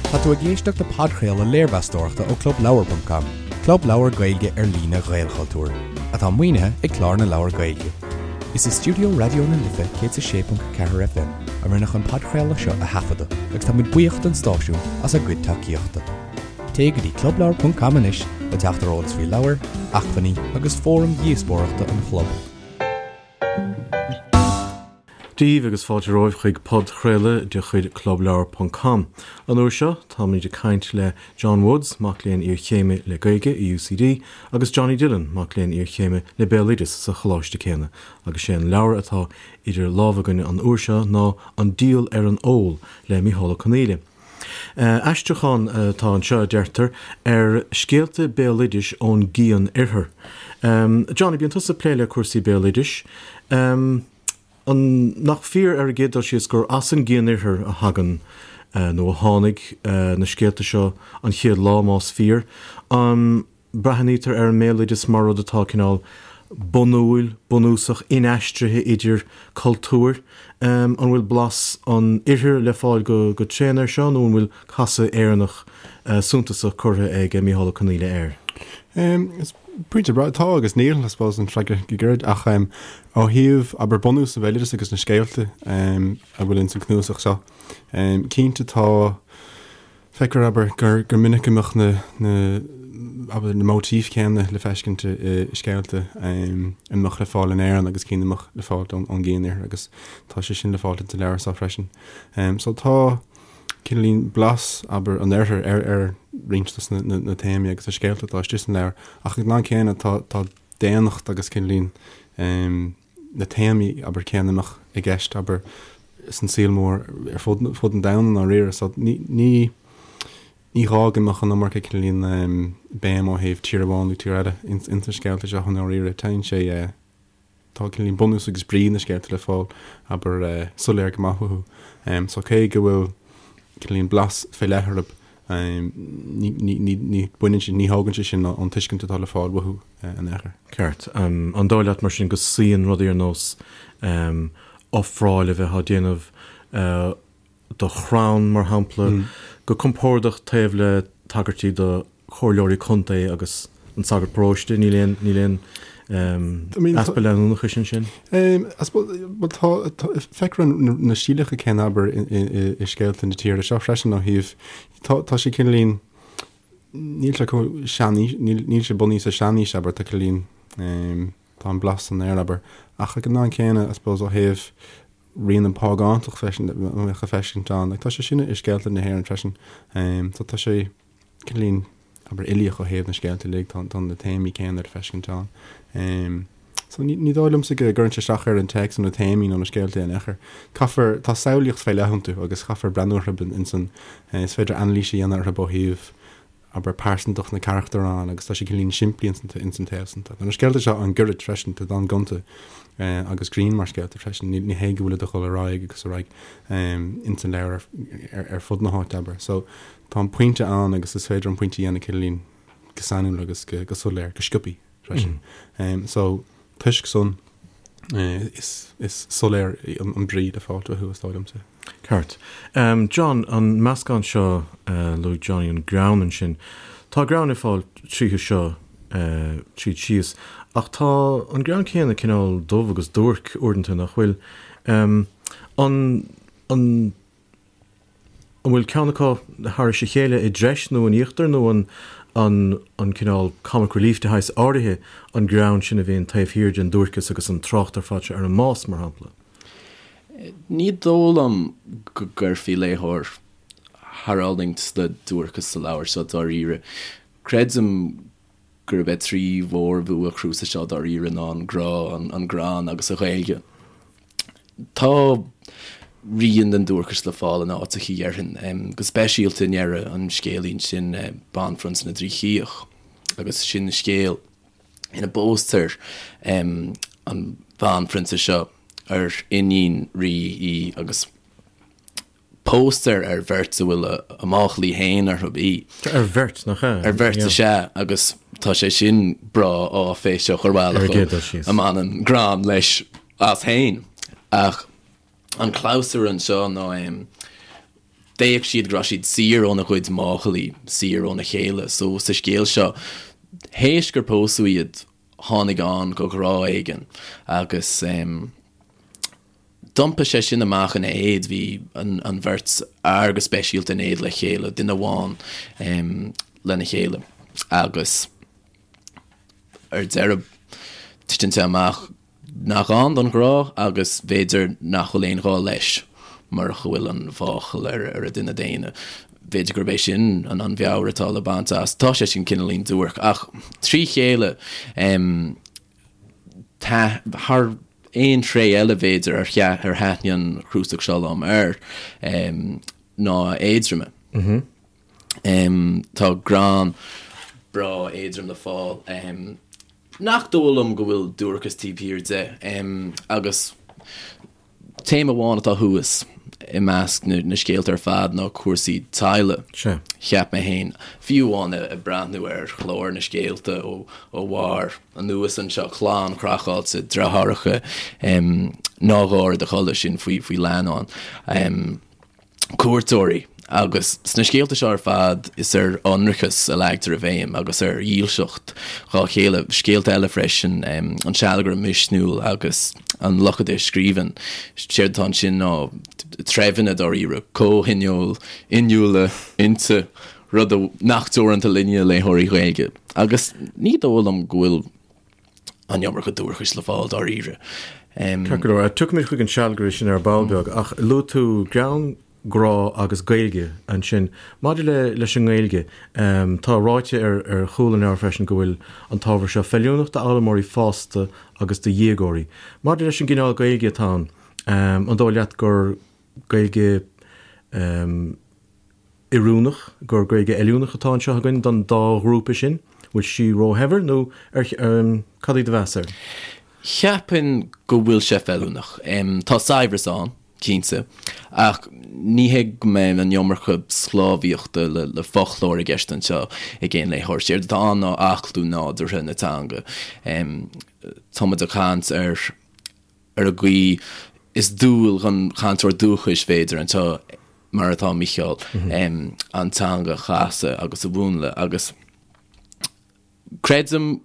Tá tú ag éisteacht le podchraoladh léirmheastóireachta ó ClubLeabhar.com, club leabhar Gaeilge ar líne Ghaelchultúir, atá maoinithe ag Clár na Leabhar Gaeilge. Is i stiúideo Raidió na Life 106.4 FM a rinneadh an podchraoladh seo a thaifeadadh agus tá muid buíoch don stáisiún as a gcuid tacaíochta. Téigh go dtí clubleabhar.com anois le teacht ar eolas faoi leabhair, acmhainní agus fóraim dhíospóireachta an chlub. Dia daoibh agus fáilte romhaibh chuig podchraoladh de chuid Clubleabhar ponc com. An uair seo, táimid ag caint le John Woods, mac léinn iarchéime le Gaeilge i UCD, agus Johnny Dillon, mac léinn iarchéime le Béaloideas sa choláiste céanna, agus sé an leabhar atá idir lámha againn an uair seo ná An Diabhal ar an Ól le Micheál Ó Conghaile. Aistriúchán atá anseo, a deirtear, ar scéalta béaloidis ón gCian-Oirthear. Johnny, bíonn tusa ag plé le cúrsaí béaloidis. An nach fíor ar an gcéad dul síos gur as an gCian-Oirthear a thagann, nó a tháinig, na scéalta seo an chéad lá, más fíor? An Breathnaítear ar an mbéaloideas mar rud atá cineál bunúil, bunúsach, inaistrithe idir cultúir. An bhfuil blas an Oirthir le fáil go tréan air seo nó an bhfuil casadh Éireannach suntasach curtha ag Micheál Ó Conghaile air? Is pointe breá. Tá agus níl, I suppose, an freagra go gairid. Ach ó thaobh, abair, bunús an bhéaloidis agus na scéalta a bhfuil ins an cnuasach seo, cinnte tá, Feictear, abair, gur gur minic go mbeadh na na abair na móitíf chéanna le feiscint i scéalta a mbeadh le fáil in Éirinn agus cinn a mbeadh le fáil ón ón gCian-Oirthear agus tá sé sin le fáil sa leabhar seo freisin. So tá cineáilín blas, abair, an Oirthir ar ar roinnt dos na na na téamaí agus na scéalta atá istigh san leabhar ach ag an am céanna tá tá daonnacht agus cineáilín na téamaí, abair, céanna a mbeadh i gceist, abair, san saol mór ar fud, fud an domhain i ndáiríre. So ní, ní, ní gá go mbeadh an iomarca cineáilín béim ó thaobh tír amháin nó tír eile ins, ins na scéalta seo i ndáiríre. Téann sé, tá cineáilín bunús agus brí na scéalta le fáil, abair, soiléir go maith uathu. So cé go bhfuil cineáilín blas fé leith orthu, Ní, ní, ní, ní baineann sé, ní thógann sé sin ón tuiscint atá le fáil uathu in aon chor. Ceart. An dóigh leat mar sin go suíonn rudaí ar nós ofráil a bheith á déanamh do chrann, mar shampla, go compordach taobh le tagairtí do chomhairleoirí contae agus an sagart paróiste, níl aon, níl aon easpa leanúnachais ansin? I suppose, bhuel tá, tá, feictear na stíleacha céanna abair i scéalta na tíre seo freisin ó thaobh, tá, tá sé cineáilín, níl sé chomh seanaois, níl, níl sé bunaithe sa seanaois abair, tá cineáilín, tá an blas san aer abair. Ach ag an am céanna, I suppose, ó thaobh rian an phágántacht freisin, a bheadh le feiscint ann, like tá sé sin i scéalta na hÉireann freisin. So tá sé, cineáilín, abair, uilíoch ó thaobh na scéalta uilig, tá tá na téamaí céanna le feiscint ann. So ní ní dóigh liomsa go gcuireann sé isteach ar an téacs nó na téamaí nó na scéalta in aon chor. Caithfear, tá samhlaíocht fé leith iontu agus caithfear breathnú orthu ins an, is féidir anailís a dhéanamh orthu ó thaobh, abair, pearsantacht na carachtar ann agus tá sé cineáilín simplí ins an ins an taobh san. Tá na scéalta seo an-ghairid freisin, tá an-ghonta agus grinn mar scéalta freisin, ní ní hé go bhfuilid ag dul ar aghaidh agus ar aghaidh ins an leabhar ar ar fud na háite, abair. So Tá an pointe ann agus is féidir an pointe a dhéanamh cineáilín go sainiúil agus go soiléir, go sciobthaí freisin. So, toisc san, is soiléir an brí le fáil uathu, is dóigh liomsa. Ceart. John, an meascán seo, luaigh Johnny an greann ansin. Tá greann le fáil tríothu seo tríd síos, ach tá an greann céanna cineál dubh agus duairc uaireanta, nach bhfuil? An, an. An bhfuil ceann acu thairis a chéile i dtreis nó in íochtar nó an an an cineál comic relief de shaghas áirithe an greann sin a bhíonn taobh thiar den duairceas agus an trácht ar fad seo ar an mbás, mar shampla? Ní dóigh liom go gcuirfí léitheoir thar fhulaingt le duairceas sa leabhar seo dáiríre. Creidim gurb é trí mhórbhua an chnuasaigh seo dáiríre ná an grá, an greann agus an Ghaeilge. Tá rian den duairceas le fáil in áiteachaí, déarfainn, go speisialta i ndeireadh an scéilín sin, Banphrionsa na dTrí Chíoch, agus sin scéal ina bpóstar an bhanphrionsa seo ar iníon rí í agus póstar ar bheirt a bhfuil a máchailí féin orthu í. Ar bheirt, nach ea? Ar bheirt is ea, agus tá sé sin breá áiféiseach ar bhealach a mbaineann greann leis as féin. Ach an clabhsúr anseo ná. D'fhéach siad go raibh siad saor óna gcuid máchailí, saor óna chéile. So sa scéal seo, théis gur pósadh iad, tháinig ann go ghrá éigin agus d'iompaigh sé sin amach ina éad, bhí an bheirt fhear go speisialta in éad le chéile, duine amháin lena chéile agus ar deireadh titeann sé amach nach ann don ghrá agus b'fhéidir nach bhfuil aon ghá leis murach go bhfuil an mháchail ar an duine daonna. B'fhéidir gurb é sin an an mheabhair atá le baint as. Tá sé sin cineáilín duairc ach trí chéile tá thar aon tréith eile b'fhéidir ar ar thaitnigh an chnuasach seo liom air ná a éadroime. Tá greann breá éadrom le fáil. Nach dóigh liom go bhfuil duairceas taobh thiar de. Agus téama amháin atá thuas i measc na scéalta ar fad ná cúrsaí teaghlaigh, cheap mé féin. Fiú amháin ag breathnú ar chlár na scéalta ó bharr anuas anseo, clann chraiceáilte, deartháireacha, ná gáir i do chodladh, sin faoi leannán. cuairteoirí, agus sna scéalta seo ar fad is ar ionracas a leagtar an bhéim agus ar dhílseacht dhá chéile. Scéalta eile freisin, An Sealgaire Misniúil agus An Lochaide Scríbhinn. Séard atá ansin ná treibheanna dáiríre, comhthionól, inniúla, innte, rud nach teoranta linne, léitheoirí Gaeilge. Agus ní dóigh liom go bhfuil an iomarca duaircis le fáil dáiríre. Ceart go leor, tiocfaimid chuig an sealgaire sin ar ball beag, ach luaigh tú greann, grá agus Gaeilge ansin. Maidir le leis an nGaeilge, tá ráite ar ar chúl an leabhair freisin go bhfuil an t-ábhar seo feiliúnach d'fhoghlaimeoirí fásta agus do dhéagóirí. Maidir leis an gcineál Gaeilge atá ann, an dóigh leat gur Gaeilge oiriúnach, gur Gaeilge fheiliúnach atá anseo againn don dá ghrúpa sin? Bhfuil sí róshaibhir nó ar, cad é do mheas air? Cheapfainn go bhfuil sé feiliúnach. Tá saibhreas ann, cinnte, ach ní hé go mbeidh an iomarca sclábhaíochta le foclóir i gceist anseo ag aon léitheoir. Séard atá ann ná aclú nádúrtha na teanga. Tá muid ag caint ar ar an gcaoi is dual don chainteoir dúchais, b'fhéidir, anseo mar atá Mícheál, an teanga a chasadh agus a mhúnlú agus creidim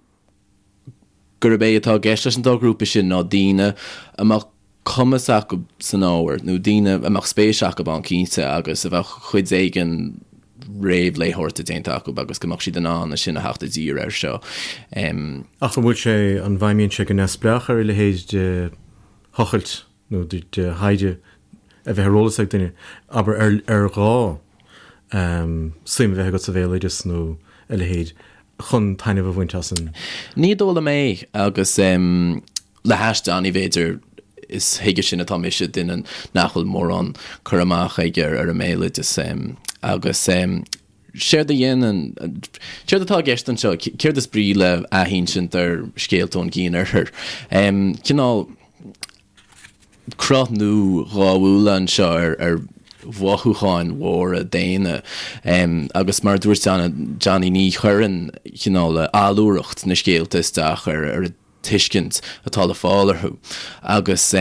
gurb é atá i gceist leis an dá ghrúpa sin ná daoine a mbeadh cumas acu san ábhar nó daoine a mbeadh spéis acu ann cinnte agus a bheadh cuid éigin réamhléitheoireachta déanta acu agus go mbeadh siad in ann ansin a theacht i dtír air seo. Ach an bhfuil sé, an bhfeidhmíonn sé go neamhspleách ar a leithéid de thochailt nó de thaighde a bheith ar eolas ag duine, abair, ar ar ghá suim a bheith agat sa bhéaloideas nó a leithéid chun taitneamh a bhaint as an. Ní dóigh liom é agus le hais Johnny b'fhéidir, is chuige sin atá mise, duine nach bhfuil mórán cur amach aige ar an mbéaloideas agus séard a dhéanann, séard atá i gceist anseo, céard is brí le athinsint ar scéalta ón gcian-oirthear? Cineál cruth nua gábhúla anseo ar mhothúcháin mhóra daonna agus mar a dúirt Johnny ní chuireann cineál allúracht na scéalta isteach ar an tuiscint atá le fáil orthu agus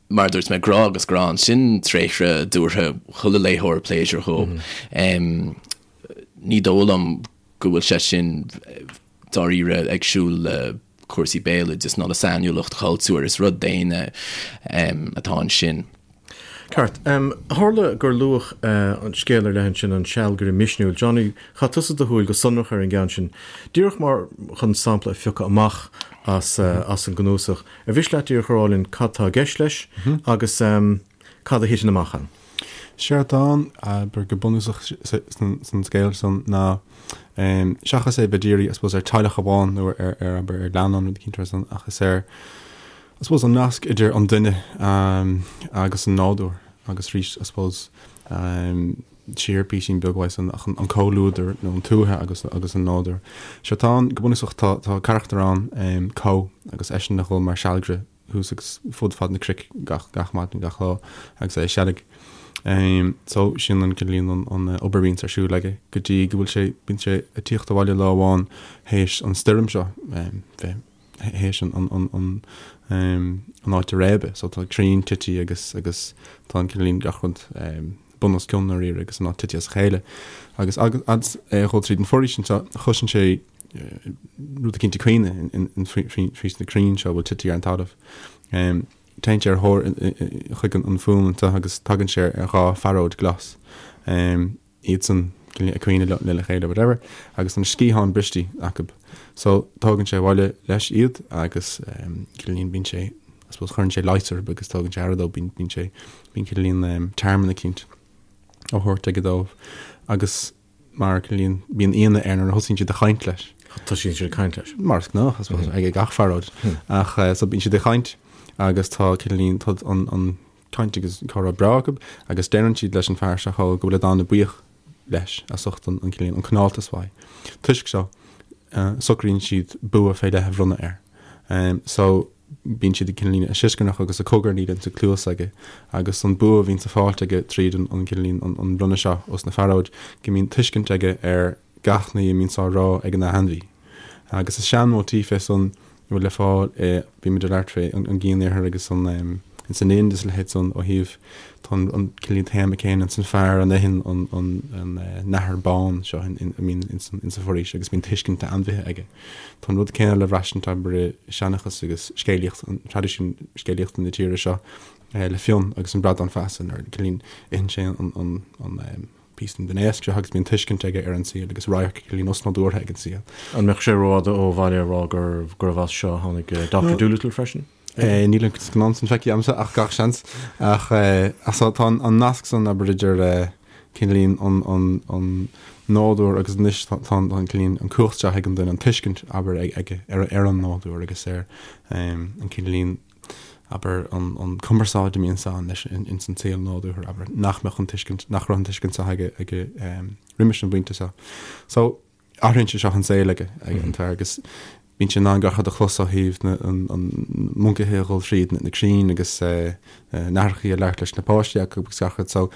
mar a dúirt mé, grá agus greann, sin tréithre a dtabharfadh chuile léitheoir pléisiúr dhóibh. Ní dóigh liom go bhfuil sé sin dáiríre ag siúl le cúrsaí béaloidis ná le sainiúlacht chultúir, is rud daonna atá ansin. Ceart. Tharla gur luadh an scéal ar leith ansin, an sealgaire misniúil. Johnny, chaith tusa do shúil go sonrach ar an gceann sin. Díreach mar chun sampla a phiocadh amach as as an gcnuasach, ar mhiste leat díreach a rá linn cad tá i gceist leis agus cad a thiteann amach ann? Séard atá ann, abair, go bunúsach san scéal san ná seachas é bheith dírithe, I suppose, ar teaghlach amháin nó ar, abair, ar leannán rud eicínt mar san, ach is ar, I suppose an nasc idir an duine agus an nádúr agus arís I suppose siar píosín beag uaidh san ach an comhluadar nó an tuaithe agus agus an nádúr. Séard atá ann go bunúsach tá tá carachtar ann Có agus eisean a dhul mar sealgaire thuas agus fud fad na cnoic gach gach maidin gach lá agus é ag seilg. So sin an cineál an an obair a bhíonns ar siúl aige go dtí go bhfuil sé bíonn sé ag tíocht abhaile lá amháin théis an stoirm seo bheith théis an áit a réabadh. So tá crainn tite agus agus tá an cineál gach rud. bun os cionn dáiríre agus an áit tite as a chéile. Agus agus é ag dhul tríd an foraois anseo, chloiseann sé rud eicínt ag caoineadh faoi sna crainn seo a bhfuil tite ar an talamh. Téann sé ar thóir chuig an fuaim anseo agus tagann sé ar dha phearóid glas. Iadsan ag caoineadh lena chéile whatever agus na sciatháin bristí acu. So tógann sé abhaile leis iad agus cineáilín bíonn sé I suppose cuireann sé leigheas orthu agus tógann sé aire dóibh bíonn bíonn sé bíonn cineáilín tearmann eicínt á thabhairt aige dóibh agus mar cineáilín bíonn ionadh air nuair a thosaíonn siad ag caint leis. Tosaíonn siad ag caint leis. Mar is gnách I suppose ag gach phearóid ach so bíonn siad ag caint agus tá cineáilín tá an an caint agus comhrá breá acu agus deireann siad leis an fear seo go bhfuil an-bhuíoch leis as ucht an cineál an cineáltas uaidh. Toisc seo socraíonn siad bua fé leith a bhronnadh air. So bíonn siad ag cineál ag sioscarnach agus ag cogarnaíl insa cluas aige agus an bua a bhíonns á fáilt aige tríd an cineál an bronnadh seo os na fearóid go mbíonn tuiscint aige ar gach ní a mbíonns á rá ag an ainmhí. Agus is sean-mhóitíf é san a bhfuil le fáil i, bhí muid ag labhairt fé an gCian-Iarthar agus an, ins an Ind is a leithéid san ó thaobh, tá an, an cineál téama céanna ins an fear a n-itheann an, an, an nathair bán seo in, in, a mbíonn ins an, ins an foraois agus bíonn tuiscint ainmhithe aige. Tá an rud céanna le braistint abair i seanchas agus scéalaíocht, an traidisiún scéalaíochta na tíre seo le Fionn agus an bradán feasa nuair a cineál itheann sé an, an, an, píosa den éasc seo agus bíonn tuiscint aige ar an saol agus radharc cineál osnádúrtha ag an saol. An mbeadh sé rófhada ó bhaile a rá gurbh as seo a tháinig Doctor Dolittle freisin? Níl an scannán san feicthe agamsa ach gach seans. Ach so tá an nasc san abair idir cineáilín an nádúr agus anois tá an cineáilín an cumhacht seo ag an duine an tuiscint abair aige ar an nádúr agus ar an cineáilín abair, an cumarsáid a mbíonns ann leis ins an saol nádúrtha, abair, nach mbeadh an tuiscint, nach raibh an tuiscint seo aige, aige roimis an bpointe seo. So, athraíonn sé seo an saol aige, ag an fear agus bíonn sé in ann gach rud a chlos ó thaobh na, an, an moncaithe a dhul thríd na, na crainn agus na nathrachaí ag labhairt leis na páistí acu agus gach rud. So,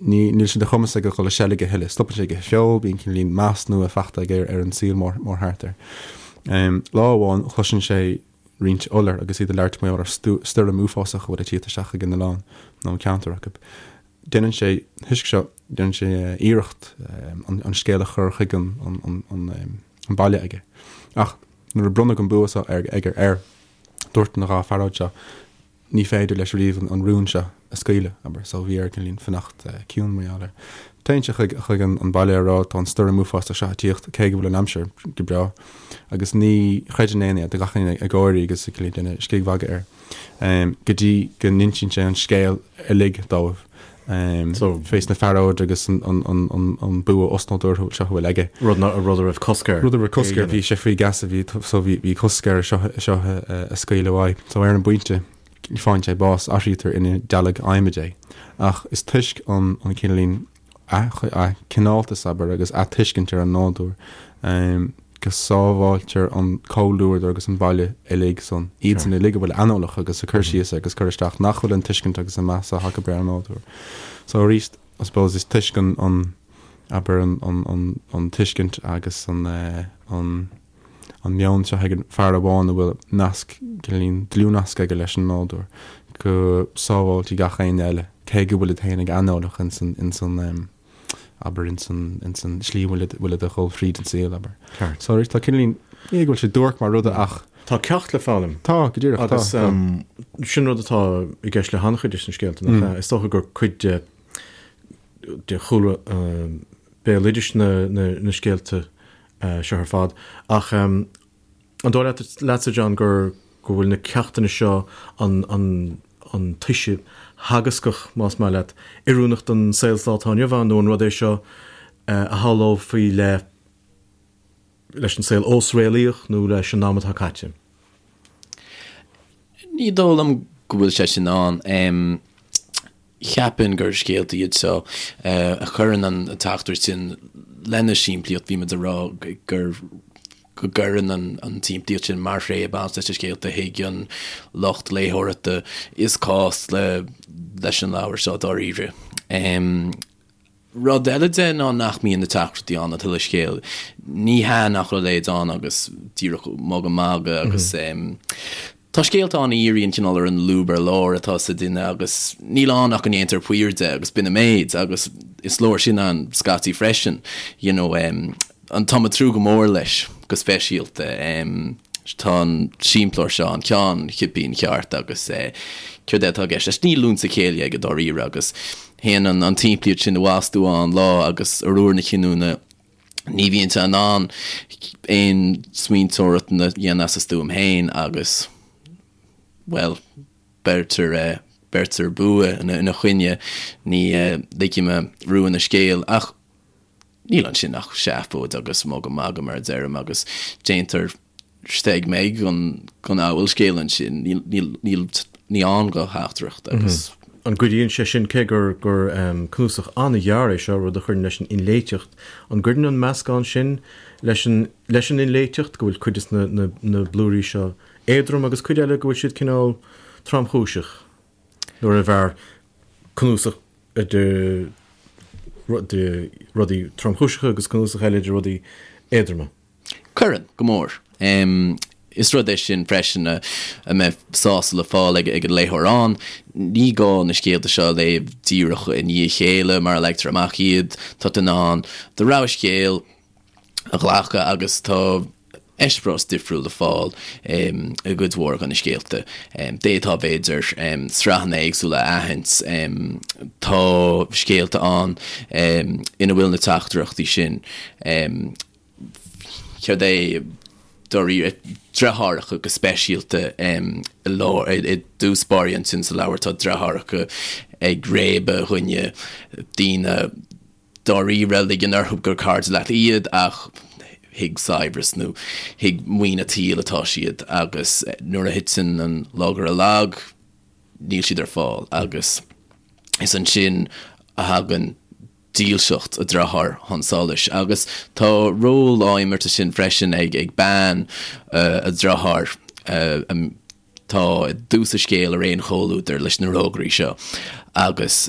ní, níl sé de chumas aige dhul ag seilg a thuilleadh. Stopann sé ag ithe feoil, bíonn cineáilín meas nua fachta aige ar, ar an saol mór, mór thart air. Lá amháin, cloiseann sé roinnt iolar agus iad ag labhairt mar gheall ar stoirm uafásach a bhfuil ag tíocht isteach ag an oileán nó an ceantar acu. Déanann sé, thoisc seo, déanann sé iarracht an scéal a chur chuig an baile aige. Ach nuair a bronnadh an bua seo aige air, dúirt na dha phearóid seo, ní féidir leis riamh an rún seo a scaoileadh, abair, so bhí air cineáilín fanacht ciúin mar gheall air. Téann sé chuig chuig an baile a rá tá an stoirm uafásach seo ag tíocht, cé go bhfuil an aimsir go breá, agus ní chreideann éinne é, tá gach éinne ag gáirí agus ag cineál déanamh scigmhagadh air, go dtí go n-insíonn sé an scéal uilig dóibh. Fés na fearóid agus an bua osnádúrtha seo a bhfuil aige. Rud a raibh cosc air. Rud a raibh cosc air, bhí sé faoi gheasa, bhí so bhí cosc air seo seo a scaoileadh uaidh. So ar an bpointe faigheann sé bás, athraítear ina dealg adhmaid é. Ach is toisc an an cineáilín a chineáltas abair agus a tuiscint ar an nádúr go sábháiltear an comhluadar agus an baile uilig san, iadsan uilig a bhfuil aineolach agus ag cur síos agus cur isteach nach bhfuil an tuiscint agus an meas acu ar an nádúr. So arís, I suppose, is toisc an, an, abair, an, an, an, an tuiscint agus an, an, an meon seo ag an fear amháin a bhfuil nasc, cineáilín dlúthnasc aige leis an nádúr, go sábháiltí gach éinne eile, cé go bhfuilid féin ag aineolach ins an, ins an, abair, ins an, ins an slí a bhfuilid, bhfuilid a dhul thríd an saol, abair. Ceart. So arís, tá cineáilín, ní go bhfuil sé duairc mar rud ach. Tá ceacht le foghlaim. Tá, go díreach, tá. Agus sin rud atá i gceist le han-chuid de na scéalta, nach ea? Is dócha gur cuid de, de chúlra béaloidis na, na, na scéalta seo ar fad. Ach An dóigh leat, leatsa, John, gur, go bhfuil na ceachtanna seo, an, an, an toise theagascach, más maith leat, oiriúnach don saol sa lá atá inniu ann, nó an rud é seo a shamhlófaí le, leis an saol ós-réalaíoch nó leis an am atá caite? Ní dóigh liom go bhfuil sé sin ann. Cheapfainn gur scéalta iad seo a chuireann an teachtaireacht sin lena simplíocht, bhí muid ag rá gur go gcuireann an tsimplíocht sin mar thréith ag baint leis na scéalta a thuig an lucht léitheoireachta is cás leis an leabhar seo dáiríre. Rud eile de ná nach mbíonn na teachtaireachtaí ann an t-uile scéal. Ní hea nach raibh a leithéid ann agus díreach mugadh magadh agus. Tá scéalta ann a dhíríonn cineál ar an lúb ar lár atá sa duine agus níl ann ach go ndéantar paor de agus b'in an méid agus is leor sin ann scaití freisin you know. An Táim ag tnúth go mór leis go speisialta. Tá an simpleoir seo an ceann chipín ceart agus céard é atá i gceist leis? Níl liúnta céille aige dáiríre agus théann an tsimplíocht sin i bhfastú ann lá agus ar uair na cinniúna ní bhíonn sé in ann aon smaointeoireacht a dhéanamh as a stuaim féin agus, bhuel, beirtear beirtear bua ina choinne. Ní ligfidh mé rúin an scéil ach. Níl ansin ach seafóid agus mugadh magadh, mar a deirim, agus déantar steig meig den fhabhalscéal ansin. Níl, ní ann do theachtaireacht agus. An gcuidíonn sé sin, cé gur gur cnuasach an-ghearr é seo, rud a chuireann leis an inléiteacht, an gcuireann an meascán sin leis an leis an inléiteacht, go bhfuil cuid de na na blúirí seo éadrom agus cuid eile go bhfuil siad cineál tromchúiseach, nuair arbh fhearr cnuasach de rudaí tromchúiseacha agus cnuasach eile de rudaí éadroma. Cuireann, go mór. Is rud é sin freisin a mbeidh sásamh le fáil ag an léitheoir ann. Ní gá na scéalta seo a léamh díreach i ndiaidh a chéile mar a leagtar amach iad. Tá tú in ann do rogha scéal a ghlacadh agus tá eispéireas difriúil le fáil i gcuid mhór de na scéalta. D'fhéadfá, b'fhéidir, sraitheanna éagsúla a aithint. Tá scéalta ann ina bhfuil na teachtaireachtaí sin. Céard é, dáiríre, deartháireacha go speisialta i lár, i dtús báire ansin sa leabhar tá deartháireacha ag réabadh dhuine, daoine, dáiríre, ligean orthu gur cairde leat iad ach chuig saibhreas nó chuig maoin an tsaoil atá siad agus nuair a thiteann an lagaire lag, níl siad ar fáil agus is ansin a thagann dílseacht an dearthár chun solais agus tá ról á imirt ansin freisin ag ag bean an dearthár atá i dtús an scéil ar aon chomhluadar leis na rógairí seo agus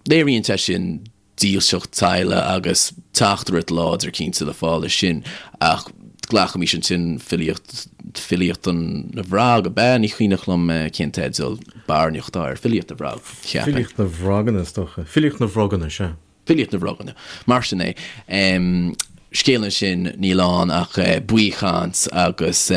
léiríonn sé sin dílseacht teaghlaigh agus teachtaireacht láidir cinnte le fáil leis sin ach glacaimis ansin filíocht filíocht na bhfrog ab ea? Ní cuimhneach liom cén teideal barainneach atá air. Filíocht na bhFrog, cheapfainn. Filíocht na bhFroganna is dócha. Filíocht na bhFroganna, sea. Filíocht na bhFroganna. Mar sin é. Scéal ansin níl ann ach baothchaint agus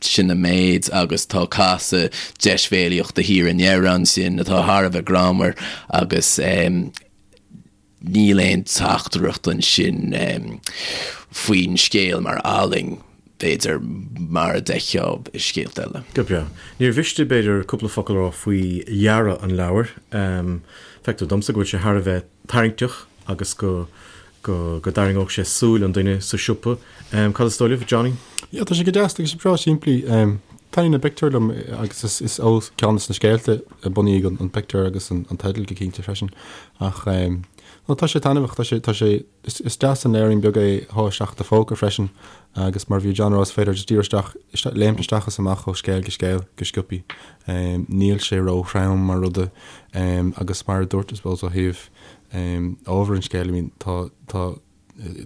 sin an méid agus tá casadh deisbhéalaíochta thiar i ndeireadh ansin atá thar a bheith greannmhar agus níl aon teachtaireacht ansin faoin scéal mar ealaín, b'fhéidir, mar a d'fheicfeá i scéalta eile. Go breá. Níor mhiste, b'fhéidir, cúpla focal a rá faoi dhearadh an leabhair. Feictear domsa go bhfuil sé thar a bheith tarraingteach agus go go go dtarraingeodh sé súil an duine sa siopa. Cad is dóigh libh, Johnny? Yeah, tá sé go deas, tá sé breá simplí. Taitníonn na pictiúir liom agus is is ó ceann de na scéalta a bunaíodh an pictiúr agus an teideal go cinnte freisin. Ach no, tá sé taitneamhach, tá sé tá sé is is deas an leabhairín beag é a shá isteach i do phóca freisin agus mar a bhí John a rá is féidir just díreach isteach léimt isteach is amach ó scéal go scéal go sciobthaí. Níl sé ró-throm mar rud agus mar a dúirt I suppose ó thaobh ábhar an scéil, I mean tá tá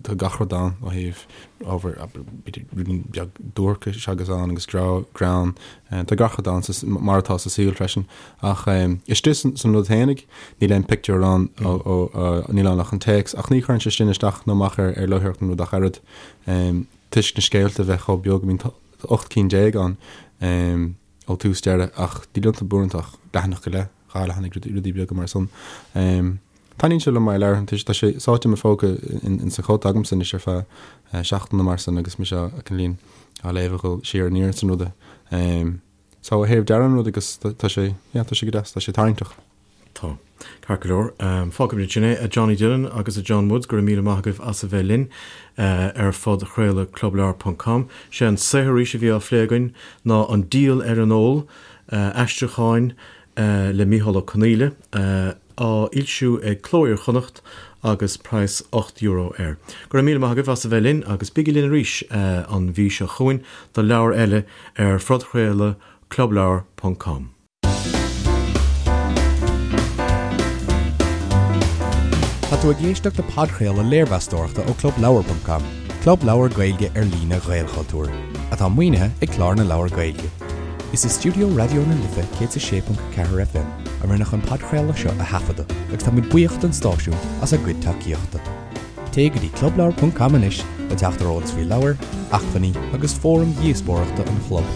tá gach rud ann ó thaobh ábhar b'fhéidir rudaí beag duaircis agus ann agus grá greann tá gach rud ann mar atá sa saol freisin ach istigh san rud fhéinig níl aon pictiúr ann níl ann ach an téacs ach ní chuireann sé sin isteach nó amach ar ar léitheoireacht an rud ach oiread toisc na scéalta a bheith chomh beag I mean tá 18 cinn ann ó tús deireadh ach níl iontu buaireanta ach leathanach go leith. 2 leathanaigh, rudaí beaga mar san. Taitníonn sé liom mar leabhar, tá sé sáite i mo phóca in sa chóta agamsa anois ar feadh seachtaine mar san agus mise á cineáilín á léamh a dhul siar aniar san ruda. So ó thaobh dearadh an rud agus tá sé, yeah, tá sé go deas, tá sé tarraingteach. Tá. Ceart go leor. Fágfaimid ansin é. A Johnny Dillon agus a John Woods, go raibh míle maith agaibh as a bheith linn ar phodchraoladh clubleabhar ponc com. Sé an saothar arís a bhí á phlé againn ná An Díol ar an Ól, aistriúcháin le Mícheál Ó Conghaile, á fhoilsiú ag Cló Iar-Chonnacht agus praghas €8 air. Go raibh míle maith agaibh as a bheith linn agus bígí linn arís an mhí seo chugainn do leabhar eile ar phodchraoladh clubleabhar ponc com. Tá tú ag éisteacht le podchraoladh léirmheastóireachta ó clubleabhar.com, club leabhar Gaeilge ar líne Ghaelchultúir. atá maoinithe ag Clár na Leabhar Gaeilge. Is i stiúideo Raidió na Life 106.4 FM a rinneadh an podchraoladh seo a thaifeadadh agus táimid buíoch don stáisiún as a gcuid tacaíochta. Téigh go dtí clubleabhar ponc com anois le teacht ar eolas faoi leabhair, acmhainní agus fóraim dhíospóireachta an chlub.